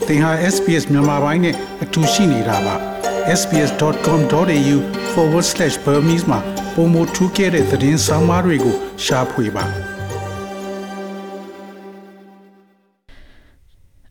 သင်ဟာ SPS မြန်မာပိုင်းနဲ့အတူရှိနေတာပါ sbs.com.au/Burmese မှာပုံမထူးခဲ့တဲ့သတင်းစာမားတွေကိုရှားဖွေပါ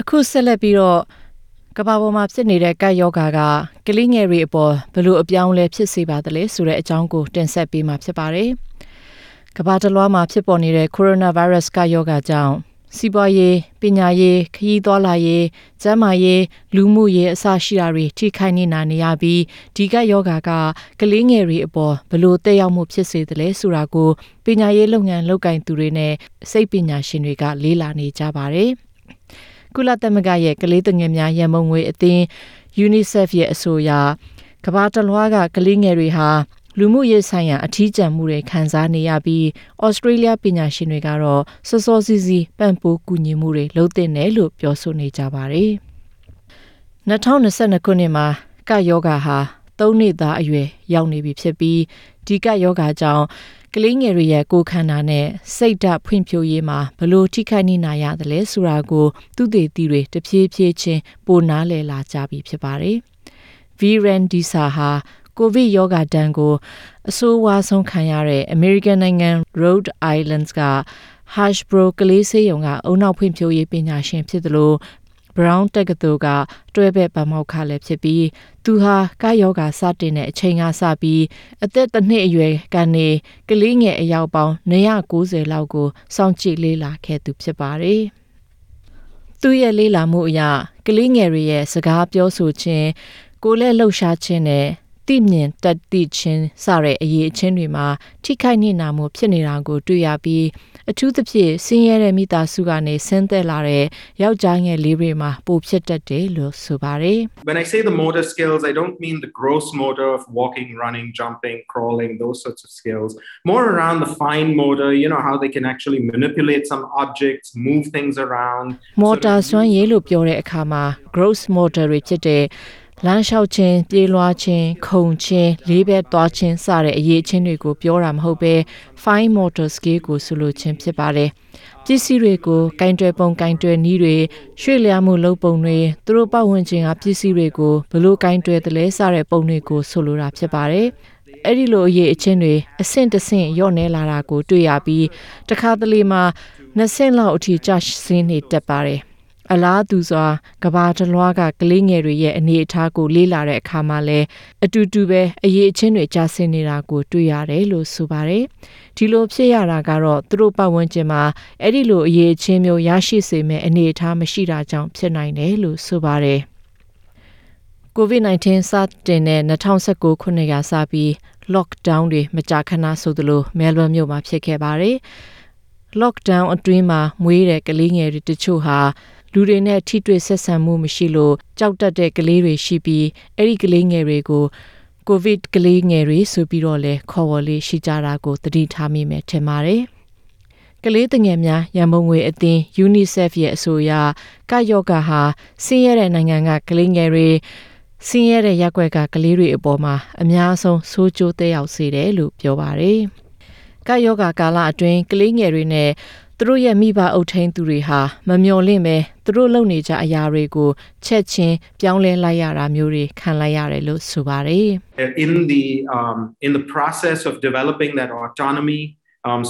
အခုဆက်လက်ပြီးတော့ကမ္ဘာပေါ်မှာဖြစ်နေတဲ့ကပ်ရောဂါကကလေးငယ်တွေအပေါ်ဘယ်လိုအပြောင်းလဲဖြစ်စေပါသလဲဆိုတဲ့အကြောင်းကိုတင်ဆက်ပေးမှာဖြစ်ပါတယ်။ကမ္ဘာတစ်လွှားမှာဖြစ်ပေါ်နေတဲ့ကိုရိုနာဗိုင်းရပ်စ်ကပ်ရောဂါကြောင့်စီးပွားရေးပညာရေးခရီးသွားလာရေးကျန်းမာရေးလူမှုရေးအစရှိတာတွေထိခိုက်နေတာနေရပြီးဒီကပ်ရောဂါကကလေးငယ်တွေအပေါ်ဘယ်လိုသက်ရောက်မှုဖြစ်စေသလဲဆိုတာကိုပညာရေးလုပ်ငန်းလုပ်ကိုင်သူတွေနဲ့စိတ်ပညာရှင်တွေကလေ့လာနေကြပါတယ်။ကုလသမဂ္ဂရဲ့ကလေးသူငယ်များရန်ပုံငွေအသင်း UNICEF ရဲ့အဆိုအရကမ္ဘာတစ်လွှားကကလေးငယ်တွေဟာလူမှုရေးဆိုင်ရာအထီးကျန်မှုတွေခံစားနေရပြီးဩစတြေးလျပညာရှင်တွေကတော့စောစောစီးစီးပံ့ပိုးကူညီမှုတွေလုပ်သင့်တယ်လို့ပြောဆိုနေကြပါတယ်။2022ခုနှစ်မှာကပ်ရောဂါဟာ3နှစ်သားအရွယ်ရောက်နေပြီဖြစ်ပြီးဒီကပ်ရောဂါကြောင့်ကလေးငယ်တွေရဲ့ကိုယ်ခန္ဓာနဲ့စိတ်ဓာတ်ဖွံ့ဖြိုးရေးမှာဘလို့ထိခိုက်နေနိုင်ရတယ်ဆိုတာကိုသူတေသီတွေတဖြည်းဖြည်းချင်းပိုနားလည်လာကြပြီဖြစ်ပါတယ်။ Viren Disa ဟာကိုဗစ်ရောဂါတန်းကိုအဆိုးဝါးဆုံးခံရတဲ့ American နိုင်ငံ Rhode Island က Hashbro ကလေးဆေးရုံကအုံနောက်ဖွံ့ဖြိုးရေးပညာရှင်ဖြစ်သလိုBrown တက္ကသိုလ်ကတွဲဘက်ပါမောက္ခလည်းဖြစ်ပြီးသူဟာကာယောဂါစတင်တဲ့အချိန်ကစပြီးအသက်တစ်နှစ်အရွယ်ကနေကလေးငယ်အယောက်ပေါင်း990လောက်ကိုစောင့်ကြည့်လေ့လာခဲ့သူဖြစ်ပါတယ်။သူရဲ့လေ့လာမှုအရကလေးငယ်တွေရဲ့စကားပြောဆိုခြင်းကိုယ်လက်လှုပ်ရှားခြင်းနဲ့သိမြင်တတ်သိခြင်းစတဲ့အရေးအချင်းတွေမှာထိခိုက်နေတာမျိုးဖြစ်နေတာကိုတွေ့ရပြီးအထူးသဖြင့်ဆင်းရဲတဲ့မိသားစုကနေဆင်းသက်လာတဲ့ယောက်ျားငယ်လေးတွေမှာပိုဖြစ်တတ်တယ်လို့ဆိုပါတယ်။ When I say the motor skills, I don't mean the gross motor of walking, running, jumping, crawling, those sorts of skills. More around the fine motor, how they can actually manipulate some objects, move things around. Motor စွမ်းရည်လို့ပြောတဲ့အခါမှာ gross motor တွေဖြစ်တဲ့လမ်းလျှောက်ခြင်းပြေးလွှားခြင်းခုန်ခြင်းလေးဘက်သွားခြင်းစတဲ့အရေးအချင်းတွေကိုပြောတာမဟုတ်ပဲ fine motor skill ကိုဆိုလိုခြင်းဖြစ်ပါတယ်ပစ္စည်းတွေကိုကင်တွယ်ပုံကင်တွယ်နည်းတွေရွှေ့လျားမှုလုပ်ပုံတွေသူတို့ပတ်ဝန်းကျင်ကပစ္စည်းတွေကိုဘလို့ကင်တွယ်တယ်လဲစတဲ့ပုံတွေကိုဆိုလိုတာဖြစ်ပါတယ်အဲ့ဒီလိုအရေးအချင်းတွေအဆင့်တစ်ဆင့်ရော့နေလာတာကိုတွေ့ရပြီးတခါတလေမှာ2ဆင့်လောက်အထိကျဆင်းနေတတ်ပါတယ်အလားတူစွာကဘာတလွားကကလေးငယ်တွေရဲ့အနေအထားကိုလေ့လာတဲ့အခါမှာလည်းအတူတူပဲအရေးအချင်းတွေကျဆင်းနေတာကိုတွေ့ရတယ်လို့ဆိုပါတယ်ဒီလိုဖြစ်ရတာကတော့သူတို့ပတ်ဝန်းကျင်မှာအဲ့ဒီလိုအရေးအချင်းမျိုးရရှိစေမဲ့အနေအထားမရှိတာကြောင့်ဖြစ်နိုင်တယ်လို့ဆိုပါတယ် COVID-19 စတင်တဲ့2019ခုနှစ်ကစပြီး lockdown တွေမကြာခဏဆိုသလိုမဲလ်ဘန်မြို့မှာဖြစ်ခဲ့ပါတယ် lockdown အတွင်းမှာမွေးတဲ့ကလေးငယ်တွေတချို့ဟာလူတွေနဲ့ထိတွေ့ဆက်ဆံမှုမရှိလို့ကြောက်တတ်တဲ့ကလေးတွေရှိပြီးအဲ့ဒီကလေးငယ်တွေကိုကိုဗစ်ကလေးငယ်တွေဆိုပြီးတော့လဲခေါ်ဝေါ်လေးရှိကြတာကိုသတိထားမိမယ်ထင်ပါတယ်ကလေးသူငယ်များရန်ပုံငွေအသင်း UNICEF ရဲ့အဆိုအရကယောဂါဟာဆင်းရဲတဲ့နိုင်ငံကကလေးငယ်တွေဆင်းရဲတဲ့ရပ်ကွက်ကကလေးတွေအပေါ်မှာအများဆုံးဆိုးကျိုးသက်ရောက်စေတယ်လို့ပြောပါတယ်ကယောဂါကာလအတွင်းကလေးငယ်တွေနဲ့သူတို့ရဲ့မိဘအုပ်ထိန်းသူတွေဟာမမျှော်လင့်ပဲသူတို့လုပ်နေကြအရာတွေကိုချက်ချင်းပြောင်းလဲလိုက်ရတာမျိုးတွေခံလိုက်ရတယ်လို့ဆိုပါတယ် In the process of developing that autonomy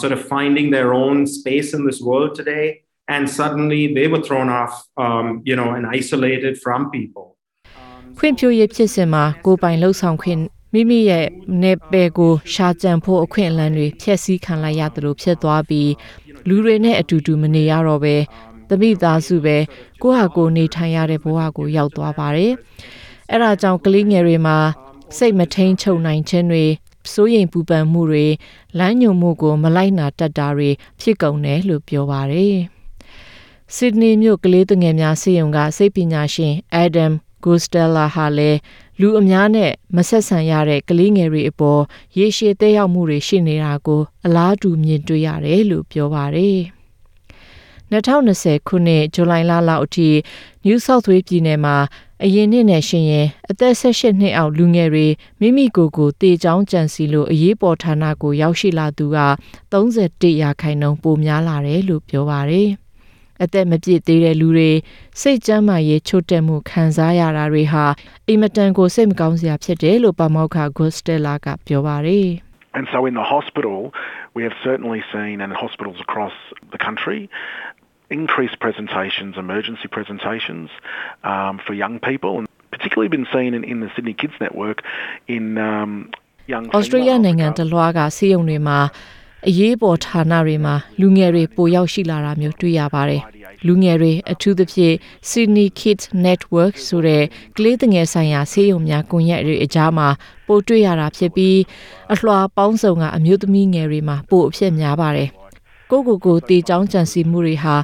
sort of finding their own space in this world today and suddenly they were thrown off and isolated from people ဖွံ့ဖြိုးရေးဖြစ်စဉ်မှာကိုယ်ပိုင်လှုပ်ဆောင်ခွင့်မိမိရဲ့နယ်ပယ်ကိုရှာကြံဖို့အခွင့်အလမ်းတွေဖျက်ဆီးခံလိုက်ရတယ်လို့ဖြစ်သွားပြီးလူတွေနဲ့အတူတူမနေရတော့ပဲတမိသားစုပဲကိုယ့်ဟာကိုယ်နေထိုင်ရတဲ့ဘဝကိုရောက်သွားပါတယ်။အဲ့ဒါကြောင့်ကလေးငယ်တွေမှာစိတ်မထိန်ချုပ်နိုင်ခြင်းတွေစိုးရိမ်ပူပန်မှုတွေလမ်းညွှန်မှုကိုမလိုက်နာတတ်တာတွေဖြစ်ကုန်တယ်လို့ပြောပါတယ်။ Sydney မြို့ကလေးသူငယ်များဆေးရုံကစိတ်ပညာရှင် Adam Gostella ဟာလည်းလူအများနဲ့မဆက်ဆံရတဲ့ကလေးငယ်တွေအပေါ်ရေရှည်သက်ရောက်မှုတွေရှိနေတာကိုအလားတူမြင်တွေ့ရတယ်လို့ပြောပါတယ်။2020ခုနှစ်ဇူလိုင်လလောက်အထိ New South Wales ပြည်နယ်မှာအရင်နှစ်နဲ့ရှင်ရင်အသက်18နှစ်အောက်လူငယ်တွေမိမိကိုယ်ကိုတေချောင်းကြံစီလို့အရေးပေါ်ဌာနကိုရောက်ရှိလာသူက31%ပိုများလာတယ်လို့ပြောပါတယ်။ အသက်မပြည့်သေးတဲ့လူတွေစိတ်ကျန်းမာရေးချို့တဲ့မှုခံစားရတာတွေဟာအင်မတန်ကိုစိတ်မကောင်းစရာဖြစ်တယ်လို့ပါမောက္ခ Gostella ကပြောပါတယ် And so in the hospital, we have certainly seen, and hospitals across the country, increased presentations, emergency presentations for young people, and particularly been seen in the Sydney Kids Network in young Australia နိုင်ငံတလွှားကဆေးရုံတွေမှာအရေးပေါ်ဌာနတွေမှာလူငယ်တွေပိုရောက်ရှိလာတာမျိုးတွေ့ရပါတယ်။လူငယ်တွေအထူးသဖြင့် Sydney Kids Network ဆိုတဲ့ကလေးငယ်ဆိုင်ရာဆေးရုံများကွန်ရက်တွေအကြားမှာပိုတွေ့ရတာဖြစ်ပြီးအလွှာပေါင်းစုံကအမျိုးသမီးငယ်တွေမှာပိုအဖြစ်များပါတယ်။ကိုတေချောင်းကြံစီမှုတွေဟာ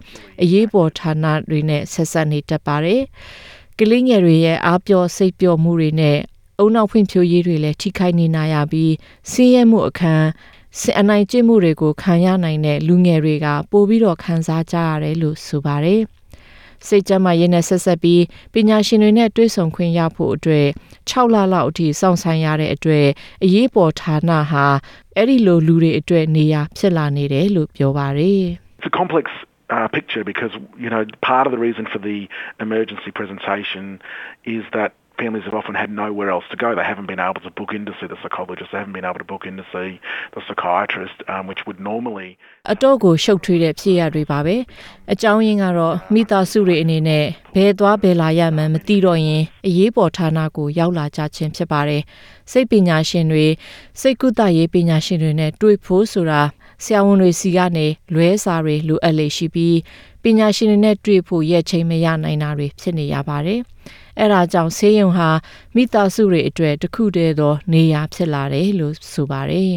အရေးပေါ်ဌာနတွေနဲ့ဆက်ဆက်နေတတ်ပါတယ်။ကလေးငယ်တွေရဲ့အားပျော့စိတ်ပျော့မှုတွေနဲ့အုံနောက်ဖွံ့ဖြိုးရေးတွေလည်းထိခိုက်နေနိုင်ရပြီးဆင်းရဲမှုအခန်းအနိုင်ကျင့်မှုတွေကိုခံရနိုင်တဲ့လူငယ်တွေကပိုပြီးတော့ခံစားကြရတယ်လို့ဆိုပါတယ်။စိတ်ကျန်းမာရေးနဲ့ဆက်ဆက်ပြီးပညာရှင်တွေနဲ့တွေ့ဆုံခွင့်ရဖို့အတွက်6လလောက်အထိစောင့်ဆိုင်ရတဲ့အတွက်အရေးပေါ်ဌာနဟာအဲ့ဒီလိုလူတွေအတွက်နေရာဖြစ်လာနေတယ်လို့ပြောပါတယ်။ It's a complex picture because, part of the reason for the emergency presentation is that families have often had nowhere else to go. They haven't been able to book in to see the psychologist. They haven't been able to book in to see the psychiatrist, which would normally... အတော့ကိုရှုပ်ထွေးတဲ့ဖြစ်ရတွေပါပဲအကြောင်းရင်းကတော့မိသားစုတွေအနေနဲ့ဘယ်သွားဘယ်လာရမှန်းမသိတော့ရင်အရေးပေါ်ဌာနကိုရောက်လာကြခြင်းဖြစ်ပါတယ်စိတ်ပညာရှင်တွေစိတ်ကုသရေးပညာရှင်တွေနဲ့တွေ့ဖို့ဆိုတာဆရာဝန်တွေစီကနေလွဲစာတွေလိုအပ်လေရှိပြီးပညာရှင်တွေနဲ့တွေ့ဖို့ရက်ချိန်မရနိုင်တာတွေဖြစ်နေရပါတယ်အဲ့ဒါကြောင့်ဆေးရုံဟာမိသားစုတွေအတွက်တစ်ခုတည်းသောနေရာဖြစ်လာတယ်လို့ဆိုပါတယ်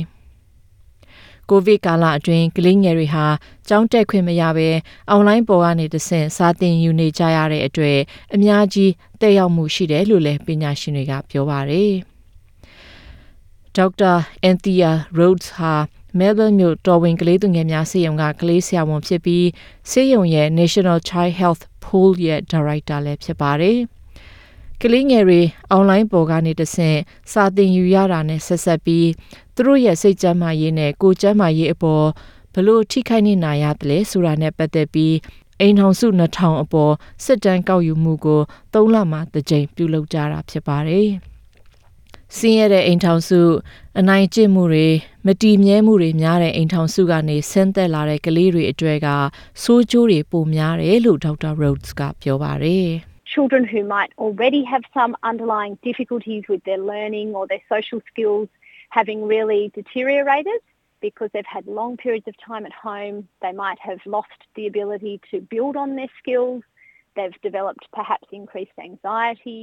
ကိုဗစ်ကာလအတွင်းကလေးငယ်တွေဟာကျောင်းတက်ခွင့်မရဘဲအွန်လိုင်းပေါ်ကနေတဆင့်စာသင်ယူနေကြရတဲ့အတွက်အများကြီးတက်ရောက်မှုရှိတယ်လို့လည်းပညာရှင်တွေကပြောပါတယ်ဒေါက်တာအန်သီယာ Rhodes ဟာMelbourne မြို့တော်ဝင်ကလေးသူငယ်များဆေးရုံကကလေးဆရာဝန်ဖြစ်ပြီးဆေးရုံရဲ့ National Child Health Pool ရဲ့ Director လည်းဖြစ်ပါတယ်ကလေးငယ်တွေအွန်လိုင်းပေါ်ကနေတဆင့်စာသင်ယူရတာနဲ့ဆက်ဆက်ပြီးသူတို့ရဲ့စိတ်ကျန်းမာရေးနဲ့ကိုယ်ကျန်းမာရေးအပေါ်ဘလို့ထိခိုက်နေနိုင်ရတယ်လဲဆိုတာနဲ့ပတ်သက်ပြီးအိမ်ထောင်စု2000အပေါ်စစ်တမ်းကောက်ယူမှုကို3လမှတစ်ကြိမ်ပြုလုပ်ကြတာဖြစ်ပါတယ်။စင်းရတဲ့အိမ်ထောင်စုအနိုင်ကျင့်မှုတွေမတည်မြဲမှုတွေများတဲ့အိမ်ထောင်စုကနေဆင်းသက်လာတဲ့ကလေးတွေအတွက်ကဆိုးကျိုးတွေပိုများတယ်လို့ဒေါက်တာ Rhodes ကပြောပါတယ်။ Children who might already have some underlying difficulties with their learning or their social skills having really deteriorated because they've had long periods of time at home. They might have lost the ability to build on their skills. They've developed perhaps increased anxiety.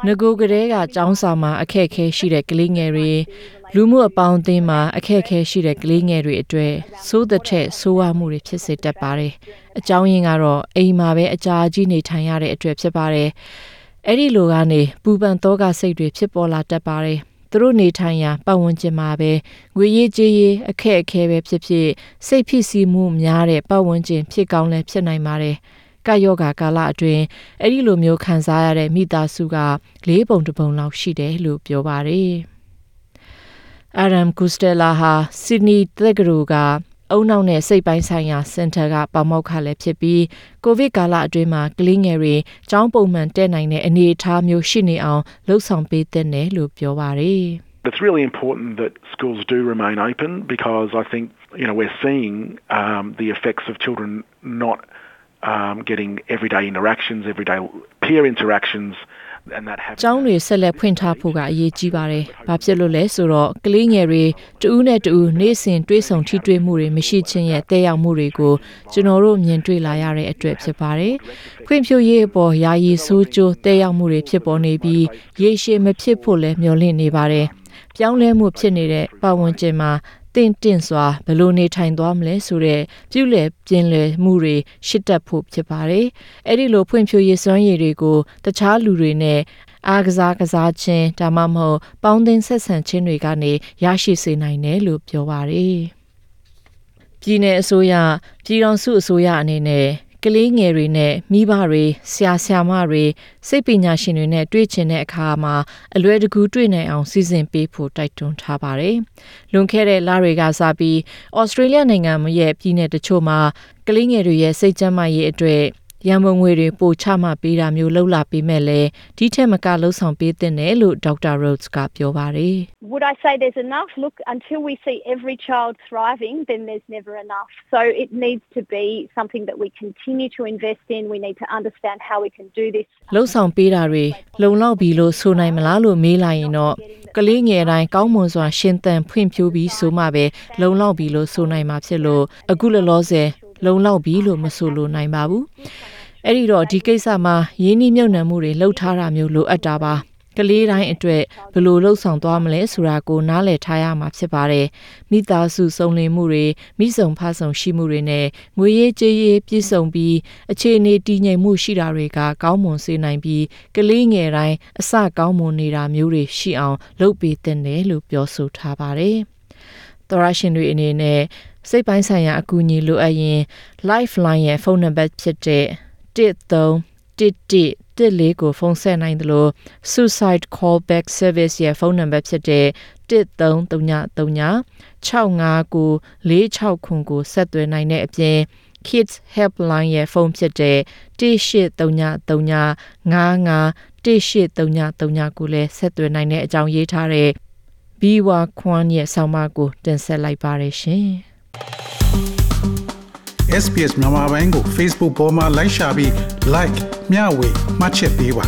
ငကိုကလေးကကျောင်းစာမှာအခက်အခဲရှိတဲ့ကလေးငယ်တွေလူမှုအပေါင်းအသင်းမှာအခက်အခဲရှိတဲ့ကလေးငယ်တွေအတွက်စိုးတဲ့ထက်ဆိုးဝါးမှုတွေဖြစ်စေတတ်ပါတယ်။အကြောင်းရင်းကတော့အိမ်မှာပဲအကြာကြီးနေထိုင်ရတဲ့အတွက်ဖြစ်ပါတယ်။အဲ့ဒီလိုကနေပူပန်သောကစိတ်တွေဖြစ်ပေါ်လာတတ်ပါတယ်။သူတို့နေထိုင်ရာပတ်ဝန်းကျင်မှာပဲငွေရေးကြေးရေးအခက်အခဲပဲဖြစ်ဖြစ်စိတ်ဖြစ်စီမှုများတဲ့ပတ်ဝန်းကျင်ဖြစ်ကောင်းလည်းဖြစ်နိုင်ပါတယ်။ကာယောဂါကာလအတွင်းအဲ့ဒီလိုမျိုးခံစားရတဲ့မိသားစုက4ပုံတစ်ပုံလောက်ရှိတယ်လို့ပြောပါတယ်။ Adam Costello ဟာ Sydney တက္ကသိုလ်ကအုံနောက်နဲ့စိတ်ပိုင်းဆိုင်ရာစင်တာကပါမောက္ခလည်းဖြစ်ပြီးကိုဗစ်ကာလအတွင်းမှာကလေးငယ်တွေကျောင်းပုံမှန်တက်နိုင်တဲ့အနေအထားမျိုးရှိနေအောင်လှုံ့ဆော်ပေးတဲ့နယ်လို့ပြောပါတယ်။ It's really important that schools do remain open because I think we're seeing the effects of children not getting everyday interactions, everyday peer interactions, and that happens. ကျောင်းတွေဆက်လက်ဖွင့်ထားဖို့ကအရေးကြီးပါတယ်။ဘာဖြစ်လို့လဲဆိုတော့ကလေးငယ်တွေတဦးနဲ့တဦးနေ့စဉ်တွေ့ဆုံထိတွေ့မှုတွေမရှိခြင်းရဲ့တည်ရောက်မှုတွေကိုကျွန်တော်တို့မြင်တွေ့လာရတဲ့အတွက်ဖြစ်ပါတယ်။ဖွံ့ဖြိုးရေးအပေါ်ယာယီဆိုးကျိုးတည်ရောက်မှုတွေဖြစ်ပေါ်နေပြီးရေရှည်မဖြစ်ဖို့လည်းမျှော်လင့်နေပါတယ်။ပြောင်းလဲမှုဖြစ်နေတဲ့ပတ်ဝန်းကျင်မှာတင့်စွာဘယ်လိုနေထိုင်သွားမလဲဆိုတဲ့ပြုလည်ပြင်းလည်မှုတွေရှစ်တက်ဖို့ဖြစ်ပါတယ်။အဲ့ဒီလိုဖွံ့ဖြိုးရေးစွမ်းရည်တွေကိုတခြားလူတွေနဲ့အားကစားခြင်းဒါမှမဟုတ်ပေါင်းသင်းဆက်ဆံခြင်းတွေကနေရရှိစေနိုင်တယ်လို့ပြောပါတယ်။ပြည်내အစိုးရပြည်ထောင်စုအစိုးရအနေနဲ့ ကလေးငယ်တွေနဲ့မိဘတွေဆရာဆရာမတွေစိတ်ပညာရှင်တွေနဲ့တွေ့ချင်တဲ့အခါမှာအလွယ်တကူတွေ့နိုင်အောင်စီစဉ်ပေးဖို့တိုက်တွန်းထားပါတယ်။လွန်ခဲ့တဲ့လတွေကစပြီးဩစတြေးလျနိုင်ငံရဲ့ပြည်내တချို့မှာကလေးငယ်တွေရဲ့စိတ်ကျန်းမာရေးအတွက်ရန်ပုံငွေတွေပိုချမှပေးတာမျိုးလှုပ်လာပြီးမဲ့လဲဒီထက်မကလှုပ်ဆောင်ပေးတဲ့နယ်လို့ဒေါက်တာ Rhodes ကပြောပါတယ် Would I say there's enough? Look, until we see every child thriving, then there's never enough. So it needs to be something that we continue to invest in. We need to understand how we can do this. လှုပ်ဆောင်ပေးတာတွေလုံလောက်ပြီလို့ဆိုနိုင်မလားလို့မေးလိုက်ရင်တော့ကလေးငယ်တိုင်းကောင်းမွန်စွာရှင်သန်ဖွံ့ဖြိုးပြီးဆိုမှပဲလုံလောက်ပြီလို့ဆိုနိုင်မှာဖြစ်လို့အခုလောလောဆယ်လုံလောက်ပြီလို့မဆိုလို့နိုင်ပါဘူးအဲ့ဒီတော့ဒီကိစ္စမှာရင်းနှီးမြှုပ်နှံမှုတွေလှုပ်ထားတာမျိုးလိုအပ်တာပါကလေးတိုင်းအတွက်ဘယ်လိုလှုပ်ဆောင်သွားမလဲဆိုတာကိုနားလည်ထားရမှာဖြစ်ပါတယ်မိသားစုစုံလင်မှုတွေမိဆုံဖဆုံရှိမှုတွေနဲ့ငွေရေးကြေးရေးပြည့်စုံပြီးအခြေအနေတည်ငြိမ်မှုရှိတာတွေကကောင်းမွန်စေနိုင်ပြီးကလေးငယ်တိုင်းအစကောင်းမွန်နေတာမျိုးတွေရှိအောင်လုပ်ပေးသင့်တယ်လို့ပြောဆိုထားပါတယ်သောရရှင်တွေအနေနဲ့စိတ်ပိုင်းဆိုင်ရာအကူအညီလိုအပ်ရင် Lifeline ရဲ့ဖုန်းနံပါတ်ဖြစ်တဲ့131114ကိုဖုန်းဆက်နိုင်တယ်လို့ Suicide Callback Service ရဲ့ဖုန်းနံပါတ်ဖြစ်တဲ့1333659469ကိုဆက်သွယ်နိုင်တဲ့အပြင် Kids Helpline ရဲ့ဖုန်းဖြစ်တဲ့1833551833ကိုလည်းဆက်သွယ်နိုင်တဲ့အကြောင်းရေးထားတဲ့ Biwa Kwan ရဲ့ဆောင်းပါးကိုတင်ဆက်လိုက်ပါရရှင်။ SPS မြန်မာပိုင်းကို Facebook ပေါ်မှာ like ရှာပြီး like မျှဝေမှတ်ချက်ပေးပါ